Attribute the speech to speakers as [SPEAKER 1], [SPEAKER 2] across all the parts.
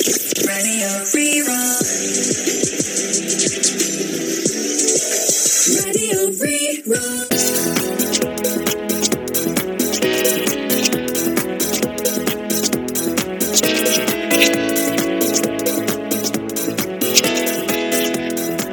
[SPEAKER 1] Raidió Rí-Rá. Raidió Rí-Rá.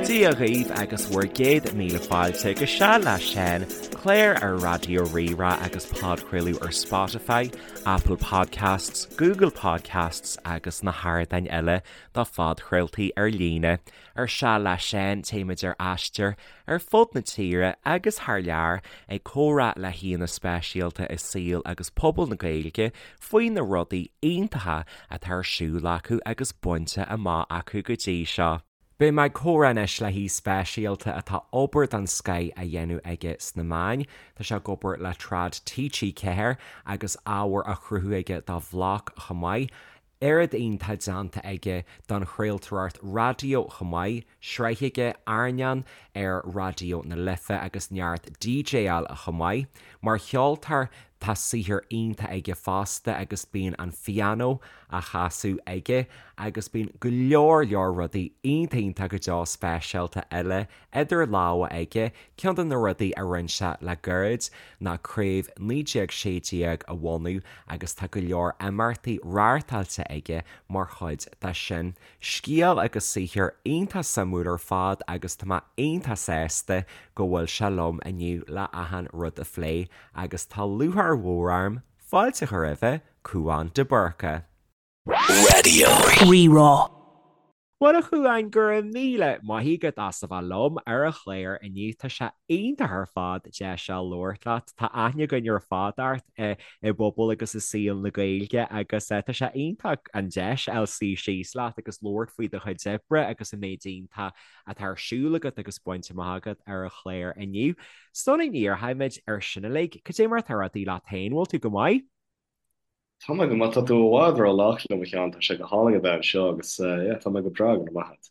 [SPEAKER 2] Dia dhaoibh agus bhur gcéad míle fáilte go Seal le Seán, clár ar Raidió Rí-Rá agus podchraoladh ar Spotify, Apple Podcasts, Google Podcasts agus na hardáin eile do phodchraoltaí ar líne. Ar Seal le Seán, téimid ar aistear ar fud na tíre agus thar lear ag comhrá le haíonna speisialta i saol agus pobal na Gaeilge faoi na rudaí iontacha atá ar siúl acu agus bainte amach acu go dtí seo. Beidh mé ag comhrá anois le haoi speisialta atá obair den scoith á dhéanamh aige sna meáin. Tá sé ag obair le Trad TG4 agus ábhar á chruthú aige dá bhlag chomh maith. Oiread iontach déanta aige don chraoltóireacht raidió chomh maith, sraith aige, Airneán, ar Raidió na Life agus neart DJáil chomh maith. Mar cheoltóir tá saothar iontach aige fosta agus bíonn an phianó á chasadh aige agus bíonn go leor leor rudaí iontach iontach go deo speisialta eile idir lámha aige. Ceann de na rudaí a rinne sé le gairid ná Craobh 1916 a bhunú agus tá go leor imeachtaí reáchtáilte aige mar chuid de sin. Scéal agus saothar iontach suimiúil ar fad agus tá mé iontach sásta go bhfuil sé liom inniu le achan rud a phlé agus tá lúcháir mhór orm fáilte a chur roimhe, Cúán de Búrca.
[SPEAKER 1] Raidió Rí-Rá.
[SPEAKER 2] Bhuel a Chúáin, go raibh míle maith agat as a bheith liom ar an chlár inniu. Tá sé iontach ar fad deis a labhairt leat. Tá aithne againn ar fad ort i bpobal agus i saol na Gaeilge agus tá sé iontach an deis a fháil suí síos leat agus labhairt faoi do chuid oibre agus an méid iontach atá ar siúl agat agus bainte amach agat ar an chlár inniu. Sula ndíreoimid ar sin uilig, cad é mar atá rudaí leat féin? Bhfuil tú go maith?
[SPEAKER 3] Tá mé go maith. Tá tú i bhfad ró-lách liom, a Sheáin. Tá sé go hálainn a bheith anseo agus yeah, tá mé go breá, go raibh maith agat.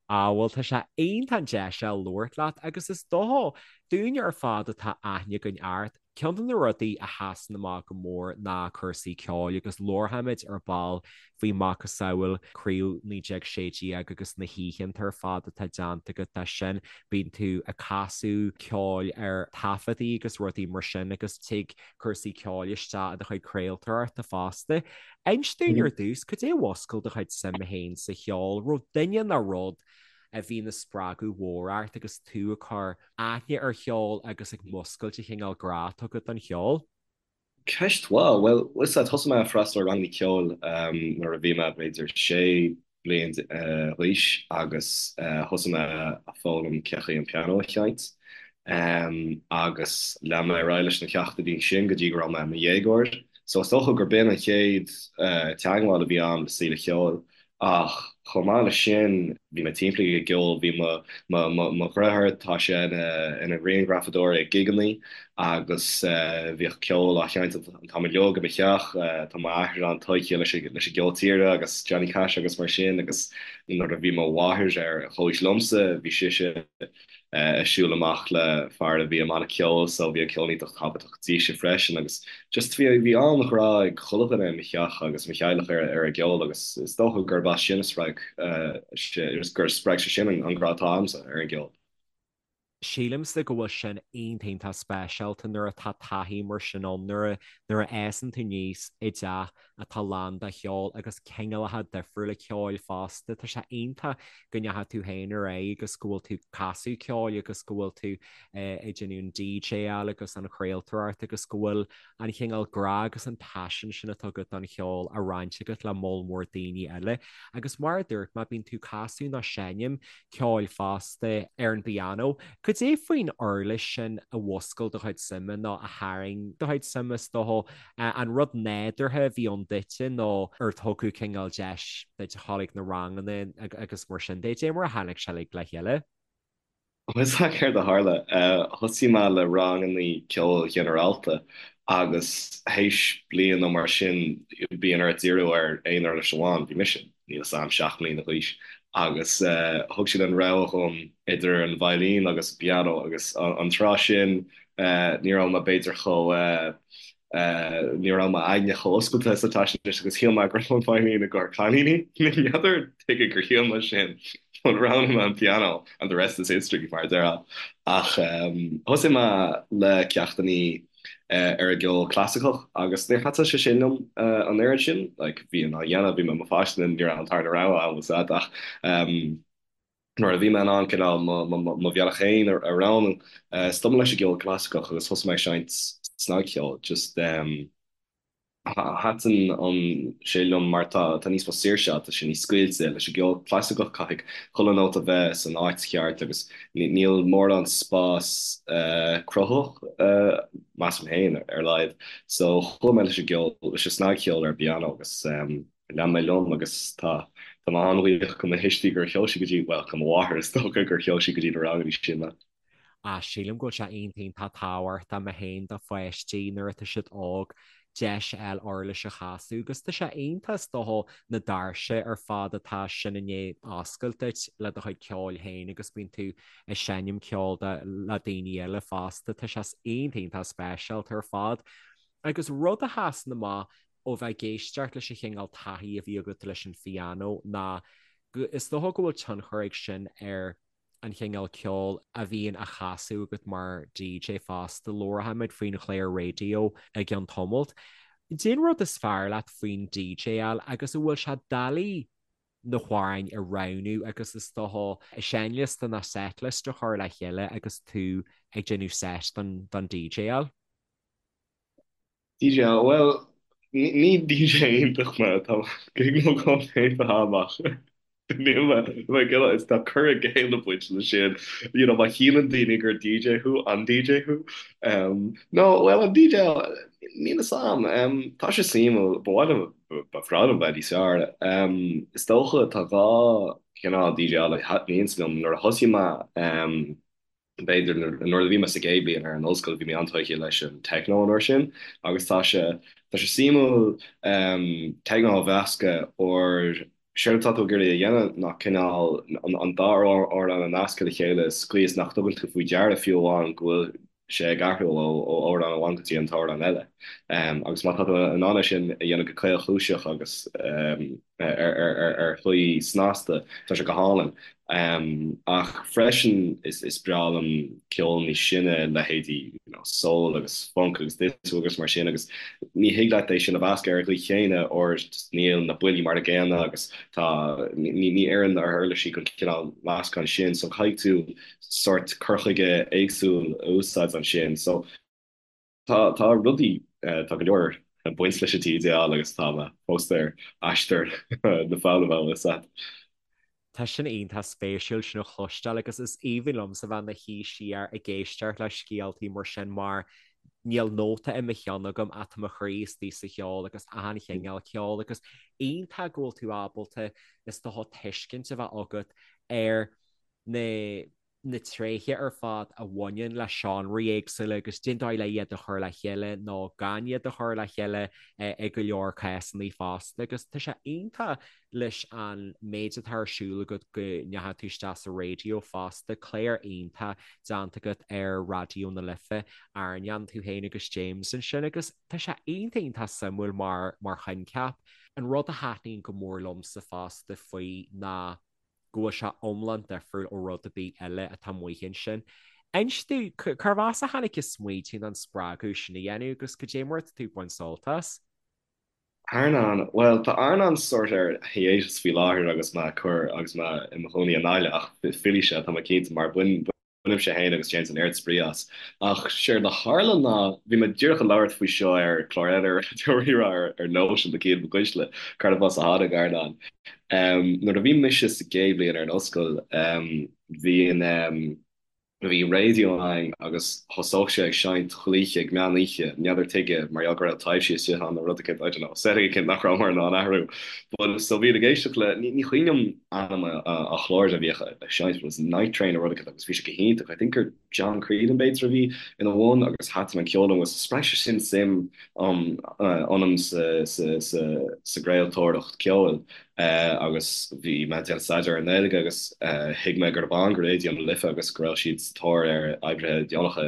[SPEAKER 2] Ah, bhuel, tá sé iontach an deis a labhairt leat agus is dócha, dúinne ar fad atá aithne againn ort, Ceann de na rudaí a sheasann amach go mór ná cúrsaí ceoil agus labharfaimid ar ball faoi macasamhail Craobh 1916 agus na hoícheanta ar fad atá déanta agat de sin. Bíonn tú ag casadh ceoil ar taifeadtaí agus rudaí mar sin agus tig cúrsaí ceoil isteach i do chuid craoltóireachta fosta. Inis dúinn ar dtús, cad é a mhúscail do chuid suime féin sa cheol? Raibh duine nó rud a bhí ina spreagadh mhór ort agus tú ag cur aithne ar cheol agus ag muscailt an chineál grá atá agat don cheol?
[SPEAKER 3] Ceist mhaith. Bhuel, bhfuil 's a'd, thosaigh mé ag freastal ar ranganna ceoil nuair a bhí mé b'fhéidir sé bliain d'aois agus thosaigh mé ag foghlaim cén chaoi an pianó a sheinnt agus lean mé ar aghaidh leis na ceachtanna sin go dtí go raibh mé i mo dhéagóir. So is dócha gur b'in an chéad teagmháil a bhí a'm le saol an cheoil. Ach chomh maith leis sin, bhí mé timpeallaithe i gceol. Bhí mo, mo, mo, mo dheartháir, tá sé ina, ina ghrianghrafadóir ag gigeannaí agus bhíodh ceol á sheinnt an t-am uilig i mo theach. Tá m'athair an-tógtha leis an, leis an gceol tíre agus Johnny Cash agus mar sin agus nuair a bhí mo mháthair ar chomhaois liomsa, bhí sise, ag siúl amach le fear a bhí i mbanna ceoil so bhí an ceol iontach tábhachtach dise freisin agus just bhí bhí an-ghrá ag chuile dhuine i mo theach agus mo theaghlach ar ar an gceol agus is dócha gurb as sin a spreag sé gur spreag sé sin an grá atá agamsa ar an gceol.
[SPEAKER 2] Sílimse go bhfuil sin iontach iontach speisialta nuair atá taithí mar sin ann, nuair a nuair a fhásann tú aníos i dteach atá lán de cheol agus cineálacha difriúla ceoil fosta. Tá sé iontach go ndeachaigh tú féin ar aghaidh agus go bhfuil tú ag casadh ceoil agus go bhfuil tú ag déanamh an DJáil agus an chraoltóireacht agus go bhfuil an chineál grá agus an paisean sin atá agat don cheol á roinnt agat le moll mór daoine eile. Agus mar a dúirt mé, bíonn tú ag casadh nó seinm ceoil fosta ar an bpianó. Cad é faoin uirlis sin a mhúscail do chuid suime nó a tharraing do chuid suime is dócha? An rud nádúrtha a bhí ann duitse nó ar tugadh cineál deis duit a dhul ag na ranganna agus mar sin de? Cad é mar a tháinig sé uilig le chéile?
[SPEAKER 3] Bhfuil 's a'd céard a tharla? Thosaigh mé le ranganna ceoil ghinearálta agus théis bliain nó mar sin bíonn ort díriú ar aon uirlis amháin. Bhí mise, níl 'fhios a'm, 7 mbliana d'aois agus thug siad an rogha dhom idir an veidhlín agus an pianó agus an tráth sin ní raibh mé b'fhéidir chomh. Ní raibh m'aigne chomh oscailte is atá sé anois agus shíl mé go raibh an veidhlín i gcomhair cailíní. N'fheadar tuige gur shíl mé sin but roghnaigh mé an pianó and the rest is history mar a déarfá. Ach thosaigh mé le ceachtannaí ar an gceol clasaiceach agus níor thaitin sé sin liom an oiread sin. Like bhí á dhéanamh, bhí mé i mo pháiste, ní raibh an tarna rogha agam ach Nuair a bhí mé in ann cineál mo bhealach féin a roghnú, stop mé leis an gceol clasaiceach agus thosaigh mé ag seinnt snagcheoil. Just thaitin sé liom mar tá níos mó saoirse ann, tá sé níos scaoilte. Leis an gceol clasaiceach caithfidh chuile nóta bheith san áit cheart agus níl mórán spás cruthaitheach, measaim féin, ar a laghad. So chuaigh mé leis an gceol, leis an snagcheol ar an bpianó agus. Lean mé liom agus tá tá mé an-bhuíoch do mo thuistí gur sheol siad go dtí, bhuel, do mo mháthair is dócha, gur sheol sí go dtí na ranganna sin mé.
[SPEAKER 2] Ah, sílim go bhfuil sé iontach iontach tábhachtach mé féin do pháistí nuair atá siad óg deis a fháil uirlis a chasadh agus tá sé iontach is dócha na doirse ar fad atá sin i ndiaidh oscailt duit le do chuid ceoil féin agus bíonn tú ag seinm ceoil le daoine eile fosta. Tá sé iontach iontach speisialta ar fad. Agus rud a sheasann amach ó bheith ag éisteacht leis an chineál taithí a bhí agat leis an phianó ná go, is dócha go bhfuil tionchar ag sin ar an chineál ceoil a bhíonn á chasadh agat mar DJ fosta. Labharfaimid faoin chlár raidió i gceann tamaill. Cén rud is fearr leat faoin DJáil agus an bhfuil sé doiligh na hamhráin a roghnú agus is dócha seinnliosta nó setlist a chur le chéile agus tú ag déanamh set don DJáil?
[SPEAKER 3] DJ, Bhuel, ní DJ iontach mé, tá gig nó dhó déanta agam ach níl mé, mé ag is tá cur i gcéill ag baint leis sin, you know, má shíleann daoine gur DJ thú, an DJ thú? Um, no, bhuel, an DJ, níl fhios a'm, um, tá sé suimiúil, ba mhaith liom, ba bhreá liom bheith níos fearr. Um, is dócha tá dhá chineál DJ a thaitníonns liom, nuair a thosaigh mé, um, B'fhéidir nuair a bhí mé sa gcéad bhliain ar an ollscoil bhí mé an-tógtha leis an techno an uair sin agus tá sé tá sé suimiúil techno a mheascadh óir séard atá tú ag iarraidh a dhéanamh ná cineál an dá amhrán a nascadh le chéile sa chaoi is nach dtugann tú faoi deara fiú amháin go bhfuil sé ag athrú ó amhrán amháin go dtí an t-amhrán eile. Agus má tá tú in ann é sin a dhéanamh go caolchúiseach agus ar shlí snasta, tá sé go hálainn. Ach freisin is breá liom ceol níos sine, leithéidí you know soul agus funk agus disco agus mar sin agus ní thig leat é sin a mheascadh ar an gcaoi chéanna óir níl na buillí mar a gcéanna agus tá ní ní oireann na huirlisí don chineál meascán sin so caithfidh tú sórt cur chuige éagsúil a úsáid ansin. So Tá, tá rudaí, tá go leor ag baint leis an DJáil agus tá mé fós ar aistear na foghlama bhfuil fhios a'd.
[SPEAKER 2] Tá sin iontach spéisiúil sin a chloisteáil agus is aoibhinn liomsa bheith i mo shuí siar ag éisteacht le scéaltaí mar sin mar níl nóta i mo cheann agam ach tá mo chroí istigh sa cheol agus achan chineál ceoil agus iontach go bhfuil tú ábalta is dócha tuiscint a bheith agat ar na na tréithe ar fad a bhaineann le seánraí éagsúla agus cén dóigh le iad a chur le chéile nó gan iad a chur le chéile i go leor cásanna fosta agus tá sé iontach leis an méid atá ar siúl agat go ndeachaigh tú isteach sa raidió fosta, clár iontach déanta agat ar Raidió na Life, Airneán, tú féin agus James ansin agus tá sé iontach iontach suimiúil mar mar choincheap. An rud a thaitníonn go mór liomsa fosta faoi ná go bhfuil sé iomlán difriúil ó rud ar bith eile atá amuigh ansin. Inis domh, cérbh as a tháinig an smaoitiú nó an spreagadh sin a dhéanamh agus cad é mar atá tú ag baint sult as?
[SPEAKER 3] Airneán, bhuel, tá Airneán sórt ar hiatus faoi láthair agus mé ag cur agus mé i mo chónaí i nGaillimh ach fillfidh sé, tá mé cinnte, mar bain Bainimse féin agus James an oiread spraoi as. Ach séard a tharla ná, bhí mé díreach ag labhairt faoi seo ar chlár eile ar Raidió Rí-Rá ar Nóisean le Cian Mac Uisle, cérbh as a tháinig Airneán. Nuair a bhí mise sa gcéad bhliain ar an ollscoil, bhí an, bhí raidió againn agus thosódh sé ag seinnt chuile oíche ag meán oíche, n'fheadar tuige, mar gheall go raibh taibhsí istigh ann nó rud eicínt, I don't know, setting eicínt nach rabhamar in ann athrú. But so bhínn ag éisteacht le, ní cuimhin liom ainm an chláir a bhíodh ag seinnt, but it was Night Train nó rud eicínt agus bhí sé go hiontach. I think gur John Creedon b'fhéidir a bhí ina bhun agus thaitin an ceol liom agus spreag sé sin suim ionam sa gcraoltóireacht ceoil agus bhí mé ag déanamh staidéar ar an nGaeilge agus thuig mé gurb ann do Raidió na Life agus go raibh siad sa tóir ar oibrithe deonacha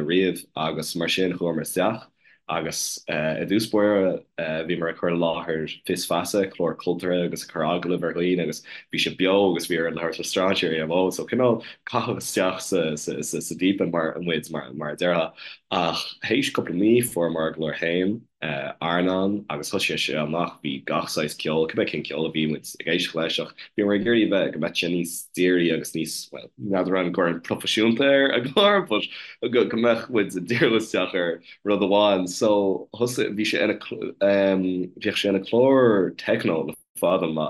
[SPEAKER 3] riamh agus mar sin chuamar isteach. Agus i dtús báire bhíomar ag cur i láthair Fios Feasa, clár cultúrtha agus ag cur agallamh ar dhaoine agus bhí sé beo agus bhí orainn labhairt le strainséirí ar an bhfón so cineál caitheadh isteach sa deep end mar muid mar a déarfá. Ach théis cúpla mí fuaireamar ár gclár féin, Airneán, agus thosaigh sé amach, bhí gach saghas ceoil, cibé cén ceol a bhí muid ag éisteacht leis ach bhíomar ag iarraidh a bheith, go mbeadh sé níos dírí agus níos, bhuel, n'fheadar an gcuirfinn proifisiúnta ar an gclár but go mbeadh muid ag díriú isteach ar rud amháin. So thosaigh, bhí sé ina, bhíodh sé ina chlár techno le fada an lá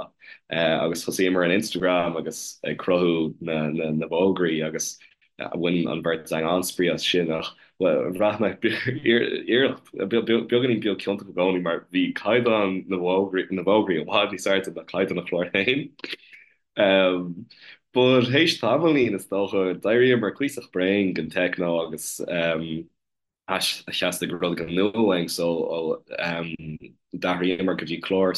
[SPEAKER 3] agus thosaíomar an Instagram agus ag cruthú na na bhfógraí agus bhain an bheirt againn an-spraoi as sin ach bhraith mé iarracht beagáinín beag ciontach i gcónaí mar bhí caighdeán na bhfógraí na bhfógraí i bhfad níos airde ná caighdeán an chláir féin. But théis tamaillín is dócha d'éiríomar cuíosach bréan den techno agus theastaigh rud éigin nua uainn so d'athraíomar go dtí clár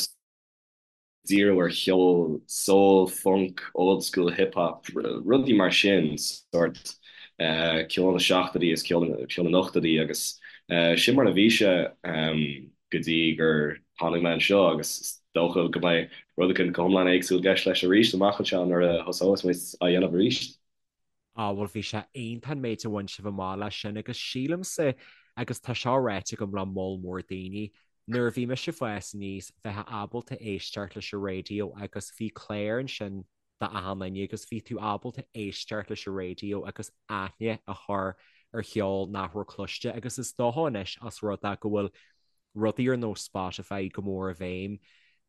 [SPEAKER 3] díriú ar cheol soul, funk, old school hip hop, rudaí mar sin, sórt ceol na seachtóidí is ceol na n-ochtóidí agus sin mar a bhí sé go dtí gur tháinig mé anseo agus is dócha go mbeidh rud éigin go hiomlán éagsúil i gceist leis arís amach anseo nuair a thosós muid á dhéanamh arís.
[SPEAKER 2] Á, bhuel, bhí sé iontach an méid a bhain sibh amach leis sin agus sílimse, agus tá seo ráite agam le moll mór daoine, nuair a bhí mise ag fás aníos, bheifeá ábalta éisteacht leis an raidió agus bhí clár ansin d'achan duine agus bhí tú ábalta éisteacht leis an raidió agus aithne a chur ar cheol nach raibh cloiste agus is dócha anois as rud é go bhfuil rudaí ar nós Spotify go mór i bhfeidhm,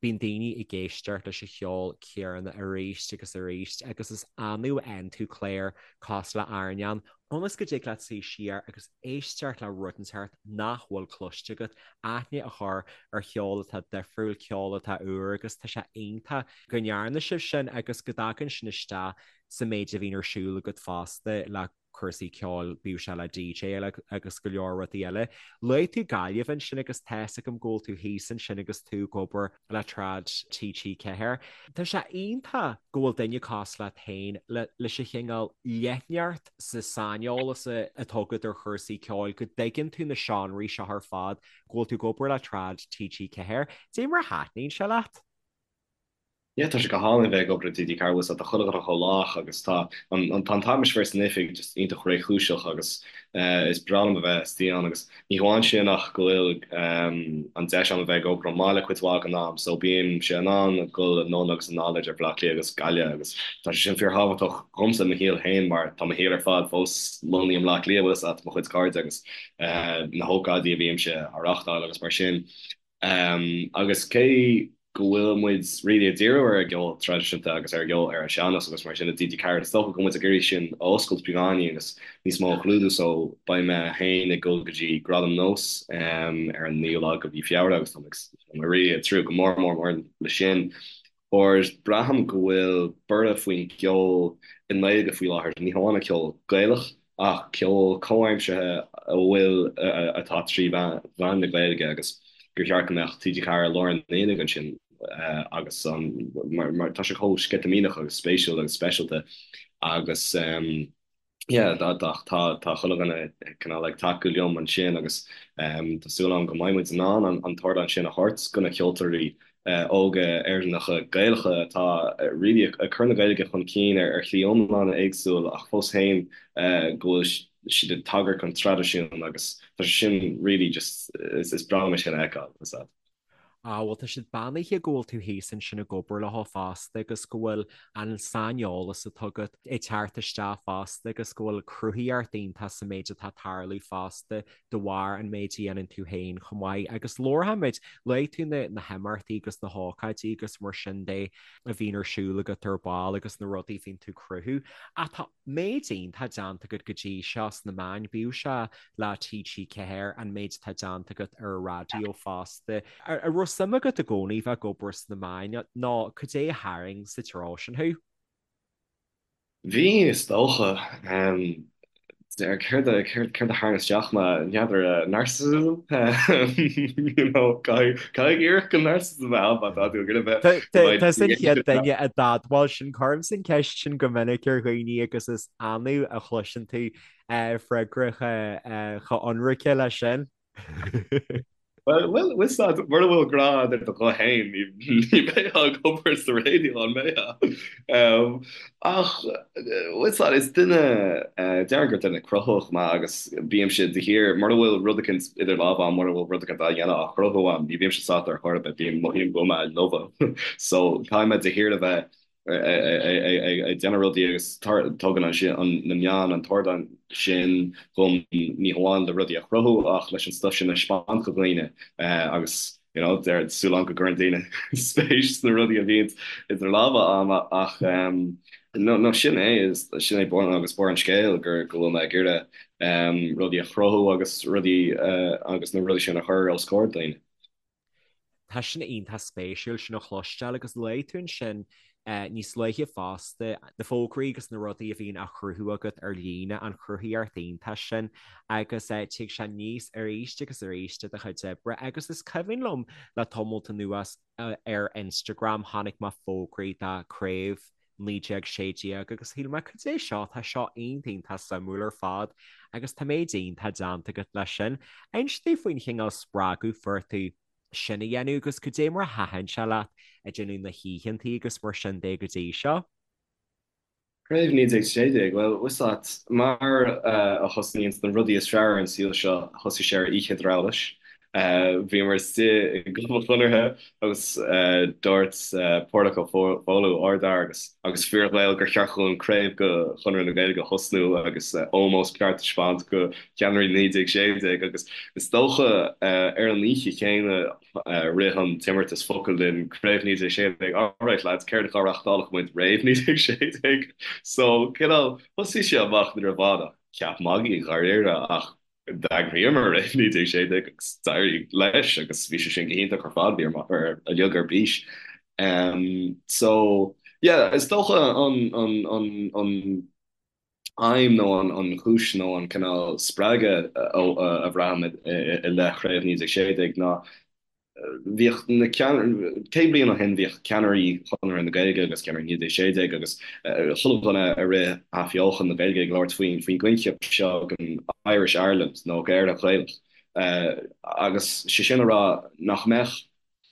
[SPEAKER 2] bíonn daoine ag éisteacht leis an cheol céanna arís agus arís agus is annamh a fhaigheann tú clár cosúil le Airneán, ionas go dtig leat suí siar agus éisteacht le rud inteacht nach bhfuil cloiste agat, aithne a chur ar cheol atá difriúil, ceol atá úr agus tá sé iontach go ndearna sibh sin agus go dtagann sin isteach sa méid a bhíonn ar siúl agat fosta le cúrsaí ceoil, bíodh sé le DJ agus go leor rudaí eile. Luaigh tú Gaillimh ansin agus tá's agam go bhfuil tú thíos ansin agus tú ag obair le Trad TG4. Tá sé iontach go bhfuil duine cosúil leat féin leis an chineál leithneacht sa saineolas atá agat ar chúrsaí ceoil, go dtuigeann tú na seánraí seo ar fad, go bhfuil tú ag obair le Trad TG4. Dé mar a thaitníonn sé leat?
[SPEAKER 3] Yeah, tá sé go hálainn bheith ag obair i TG4 bhfuil tá chuile dhuine chomh lách agus tá an tá an t-atmaisféar san oifig just iontach réchúiseach agus is breá liom a bheith istigh ann agus ní hamháin sin ach go bhfuil an deis agam a bheith ag obair ón mbaile cuid mhaith den am so bímse in ann dul anonn agus anall idir Baile Átha Cliath agus Gaillimh agus tá sé sin fíorthábhachtach dhomsa i mo shaol féin mar tá mo shaol ar fad fós lonnaithe i mBleá Cliath bhfuil fhios agat mo chuid cairde agus na hócáidí a bhímse á reáchtáil agus mar sin. Agus cé go bhfuil muid really ag díriú ar an gceol traidisiúnta agus ar an gceol ar an sean-nós agus mar sin i TG4, is dócha go bhfuil muid ag iarraidh sin a oscailt beagáinín agus níos mó a chlúdú so beidh mé féin ag dul go dtí Gradaim Nós ar an 9ú lá de mhí Feabhra agus tá mé really ag tnúth go mór mór mór le sin. Óir braithim go bhfuil borradh faoin gceol i nGaeilge faoi láthair, ní hamháin an ceol Gaelach ach ceol comhaimseartha a bhfuil, atá trí mheán na Gaeilge agus gur cheart go mbeadh TG4 i lár an aonaigh ansin agus an, mar tá sé chomh sceitimíneach agus spéisiúil agus speisialta agus. Yeah, tá tá tá chuile dhuine cineál ag tacú liom ansin agus tá súil agam go mbeidh muid in ann an t-ardán sin a thabhairt do na ceoltóirí óga Éireannacha Gaelacha atá really ag cur na Gaeilge chun cinn ar shlí iomlán éagsúil ach fós féin go bhfuil siad ag tagairt don traidisiún agus tá sé sin really just is breá liom é sin a fheiceáil.
[SPEAKER 2] Á, bhuel, tá siad beannaithe go bhfuil tú thíos ansin ag obair leo fosta agus go bhfuil an saineolas atá agat ag teacht isteach fosta agus go bhfuil cruthaíocht iontach sa méid atá ag tarlú fosta de bharr an méid a dhéanann tú féin chomh maith. Agus labharfaimid, luaigh tú na na himeachtaí agus na hócáidí agus mar sin de a bhíonn ar siúl agat ar ball agus na rudaí a bhíonn tú ag cruthú. Ach tá méid iontach déanta agat go dtí seo sna meáin, bíodh sé le TG4, an méid atá déanta agat ar an raidió fosta. An raibh suim agat i gcónaí bheith ag obair sna meáin nó cad é a tharraing sa treo sin thú?
[SPEAKER 3] Bhí, is dócha. Céard a céard a tharraing isteach mé? N'fheadar, narcissism? You know, caithfidh iarracht den narcissism a bheith ann má tá tú ag iarraidh bheith
[SPEAKER 2] Tusa an chéad duine a d'admháil sin, cuirimse an ceist sin go minic ar dhaoine agus is annamh a chloiseann tú freagra chomh ionraice leis sin.
[SPEAKER 3] Bhuel, bhuel, bhfuil 's a'd, mura bhfuil grá a'd ar do ghuth fhéin, ní bheifeá ag obair sa raidió, an mbeifeá? Ach, bhfuil 's a'd, is duine, déarfainn gur duine cruthaitheach mé agus bímse de shíor, mura bhfuil rud eicínt idir lámha a'm, mura bhfuil rud eicínt á dhéanamh, á chruthú a'm, ní bhímse sásta ar chor ar bith, bím, mothaím go bhfuil mé i lobhadh. So, caithfidh mé de shíor a bheith ag déanamh rudaí agus tugann na meáin an t-ardán sin dhom ní hamháin le rudaí a chruthú ach leis an stuif sin a 'speáint do dhaoine agus you know tá súil agam go gcuireann daoine spéis sna rudaí a bhíonn idir lámha a'm ach no no sin é sin é bun agus barr an scéil gur go bhfuil mé ag iarraidh rudaí a chruthú agus rudaí agus na rudaí sin a chur os comhair daoine.
[SPEAKER 2] Tá sin iontach spéisiúil sin a chloisteáil agus luaigh tú ansin níos luaithe fosta na fógraí agus na rudaí a bhíonn á chruthú agat ar líne, an chruthaíocht iontach sin agus tig sé aníos arís agus arís i do chuid oibre agus is cuimhin liom le tamalt anuas ar Instagram chonaic mé fógraí do Craobh 1916 agus shíl mé cad é seo, tá seo iontach iontach suimiúil ar fad agus tá méid iontach déanta agat leis sin. Inis domh faoin chineál spreagadh fuair tú sin a dhéanamh agus cad é mar a thaitin sé leat ag déanamh na hoícheantaí agus mar sin de go dtí seo.
[SPEAKER 3] Craobh 1916, bhuel, bhfuil 's a'd, mar a thosnaíonns na rudaí is fearr ar an saol seo, thosaigh sé ar oíche drabhláis. Bhíomar istigh i gClub an Chonartha agus dúirt Páraic Ó Foghlú, ardfhear agus agus fíor-Ghael, gur cheart dhúinn craobh de Chonradh na Gaeilge a thosnú agus ómós ceart a thaispeáint do cheannairí 1916 agus is dócha ar an oíche chéanna rith an t-imeartas focal linn, Craobh 1916, alright lads, céard dhá reáchtálfadh muid roimh 1916? So, cineál, thosaigh sé amach ní raibh ann ach ceap magaidh dháiríre ach d'eagraíomar Craobh 1916 agus d'éirigh leis agus bhí sé sin go hiontach ar fad, bhíomar uilig ar bís. So, yeah, is dócha an, an, an, an, aidhm nó an chúis nó an cineál spreagadh a bhraithim i leith Chraobh 1916 ná bhíodh na 100 bliain ó shin bhíodh ceannairí Chonradh na Gaeilge agus ceannairí 1916 agus chuile dhuine a rith athbheochan na Gaeilge ag labhairt faoin gcoincheap seo den Irish Ireland nó Éire Ghaelach agus sé sin a rá nach mbeadh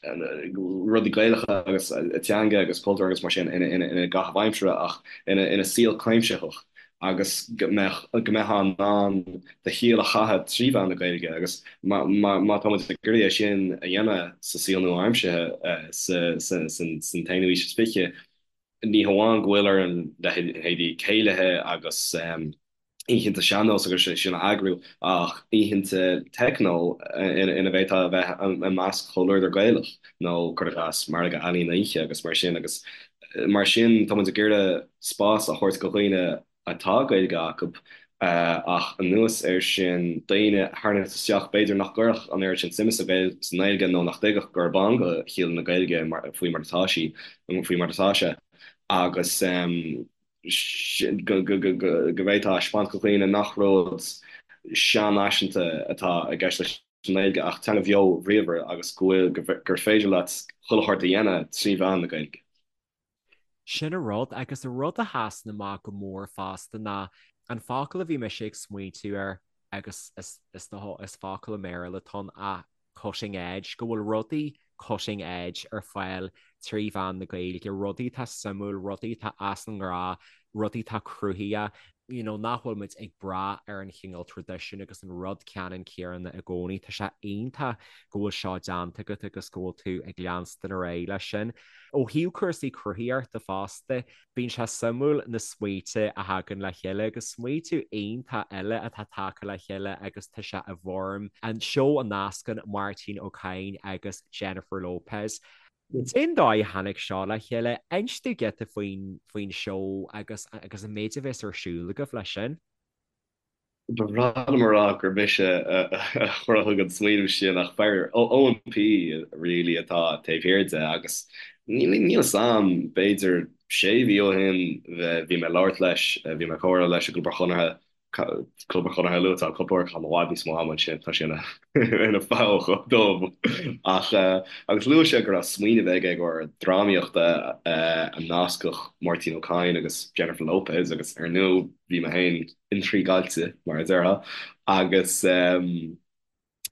[SPEAKER 3] rudaí Gaelacha agus teanga agus cultúr agus mar sin ina gcaitheamh aimsire ach ina saol cuimsitheach agus go mbeadh go mbeifeá in ann do shaol a chaitheamh trí mheán na Gaeilge agus má tá muid ag iarraidh é sin a dhéanamh sa saol nua-aimseartha san t-aonú aois is fiche ní hamháin go bhfuil orainn leithéidí céilithe agus oícheanta sean-nós agus é sin a eagrú ach oícheanta techno ina bhféadfá a bheith i measc chomhluadar Gaelach nó cuir i gcás margadh ealaíon oíche agus mar sin agus mar sin tá muid ag iarraidh spás a thabhairt do dhaoine atá Gaeilge acu ach anuas air sin daoine a tharraingt isteach b'fhéidir nach gcuirfeadh an oiread sin suime sa nGaeilge nó nach dtuigfeadh gurb ann do shaol na Gaeilge faoi mar atá sí faoi mar atá sé agus go bhféadfá a thaispeáint do dhaoine nach rud seanfhaiseanta atá i gceist leis an nGaeilge ach teanga bheo bhríomhar agus go bhfuil, gur féidir leat chuile shórt a dhéanamh trí mheán na Gaeilge.
[SPEAKER 2] Sin an rud, agus an rud a sheasann amach go mór fosta ná an focal a bhí mise ag smaointiú air agus is is focal i mBéarla atá ann ach cutting edge, go bhfuil rudaí cutting edge ar fáil trí mheán na Gaeilge, rudaí atá suimiúil, rudaí atá as an ngnáth, rudaí atá cruthaitheach, you know, nach bhfuil muid ag brath ar an chineál traidisiún agus an rud ceannann céanna i gcónaí. Tá sé iontach go bhfuil seo déanta agat agus go bhfuil tú ag leanstan ar aghaidh leis sin. Ó thaobh cúrsaí cruthaitheachta fosta, Bíonn sé suimiúil na smaointe a thagann le chéile agus smaoitiú iontach eile atá tagtha le chéile agus tá sé i bhfoirm an seó a nascann Máirtín Ó Cadhain agus Jennifer Lopez. Cén dóigh a tháinig seo le chéile? Inis domh giota faoin faoin seó agus agus an méid a bheas ar siúl agaibh leis sin.
[SPEAKER 3] Ba bhreá liom a rá gur mise a chruthaigh an smaoineamh sin ach fear Eoin P really atá taobh thiar de agus níl a fhios a'm, b'fhéidir sé mhí ó shin bhí mé ag labhairt leis, bhí mé ag comhrá leis i gClub an Chonartha, Club an Chonartha luaite cúpla uair, caithim i bhfad níos mó ama ansin, tá sé ina pholl dubh ach agus luaigh sé go raibh smaoineamh aige i gcomhair drámaíochta a nascfadh Máirtín Ó Cadhain agus Jennifer Lopez agus ar ndóigh bhí mé féin intrigueáilte, mar a déarfá, agus.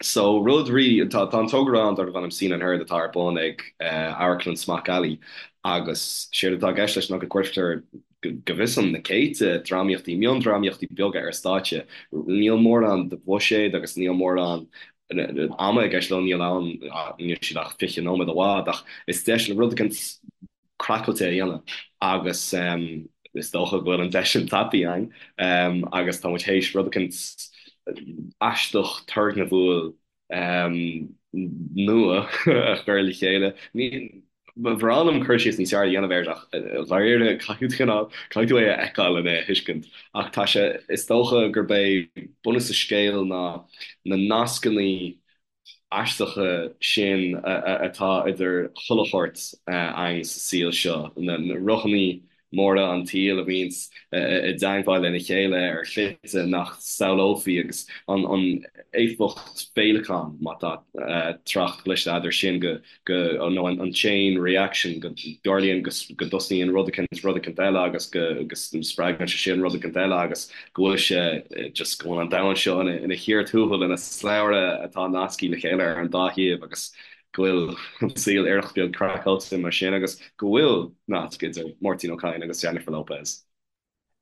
[SPEAKER 3] So rud rí, tá tá an togra ann darb ainm Scene and Heard atá ar bun ag Amharclann Smock Alley agus séard atá i gceist leis ná go gcuirtear go bhfios dom na céadta drámaíochtaí, miondrámaíochtaí beaga ar stáitse. Níl mórán de bhuiséad agus níl mórán ama i gceist leo, níl ann, níl siad ach 20 nóiméad i bhfad ach is deis le rud éicint craiceáilte a dhéanamh agus is dócha go bhfuil an deis sin tapaithe againn agus tá muid théis rud éicint aisteach turgnamhúil nua a chur le chéile. Ba bhreá liom cur síos níos fearr a dhéanamh air ach dháiríre caithfidh tú cineál, caithfidh tú é a fheiceáil lena thuiscint. Ach tá sé, is dócha gurb é bunús an scéil ná na nascannaí aisteacha sin atá idir chuile shórt againn sa saol seo, na rothannaí móra an tsaoil a bhíonns i dteangmháil lena chéile ar shlite nach samhlófaí agus an éifeacht féileacáin, má tá trácht cliste agat air sin, go, go, nó an chain reaction, go dtarlaíonn go dtosaíonn rud eicint rud eicint eile agus go spreagann sé sin rud eicint eile agus go bhfuil sé just go bhfuil an domhan seo ina chíor tuathail, ina slabhra atá nasctha le chéile ar an dá thaobh agus go bhfuil an saol iarracht beag craiceáilte mar sin agus go bhfuil nasc idir Máirtín Ó Cadhain agus Jennifer Lopez.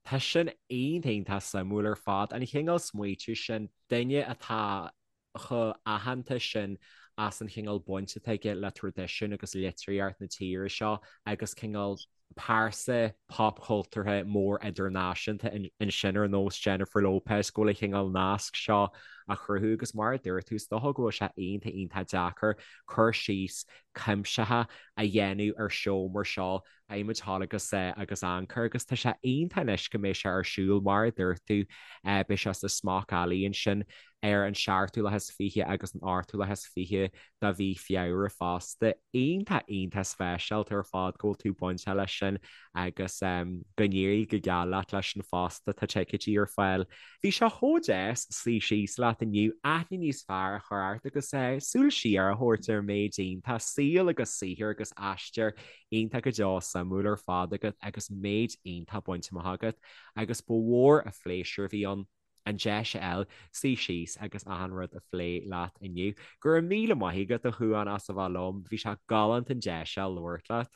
[SPEAKER 2] Tá sin iontach iontach suimiúil ar fad, an chineál smaoitiú sin, duine atá chomh aitheanta sin as an chineál baint atá aige le traidisiún agus litríocht na tíre seo agus cineál pearsa popchultúrtha mór idirnáisiúnta ansin ar nós Jennifer Lopez go bhfuil an chineál nasc seo á chruthú agus mar a dúirt tú is dócha go bhfuil sé iontach iontach deacair cur síos cuimsitheach a dhéanamh ar seó mar seo Beidh muid thall agus agus amharc agus tá sé iontach anois go mbeidh sé ar siúl mar a dúirt tú beidh sé sa Smock Alley ansin ar an seachtú lá is 20 agus an 8ú lá is 20 de mhí Feabhra fosta. Iontach iontach speisialta ar fad go bhfuil tú bainteach leis sin agus go n-éirí go geal leat leis sin fosta, tá ticéidí ar fáil. Bhí sé chomh deas suí síos leat inniu, aithne níos fearr a chur ort agus súil siar a thabhairt ar an méid iontach saol agus saothar agus aistear iontach go deo suimiúil ar fad agat agus méid iontach bainte amach agat agus ba mhór an phléisiúr a bhí ann an deis a fháil suí síos agus achan rud a phlé leat inniu. Go raibh míle maith agat a Chuáin as a bheith liom, bhí sé galánta an deis a labhairt leat.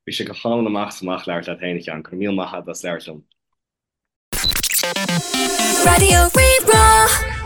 [SPEAKER 3] Bhí sé go hálainn amach is amach labhairt leat féin a Sheáin, go raibh míle maith agat as labhairt liom.
[SPEAKER 1] Raidió Rí-Rá.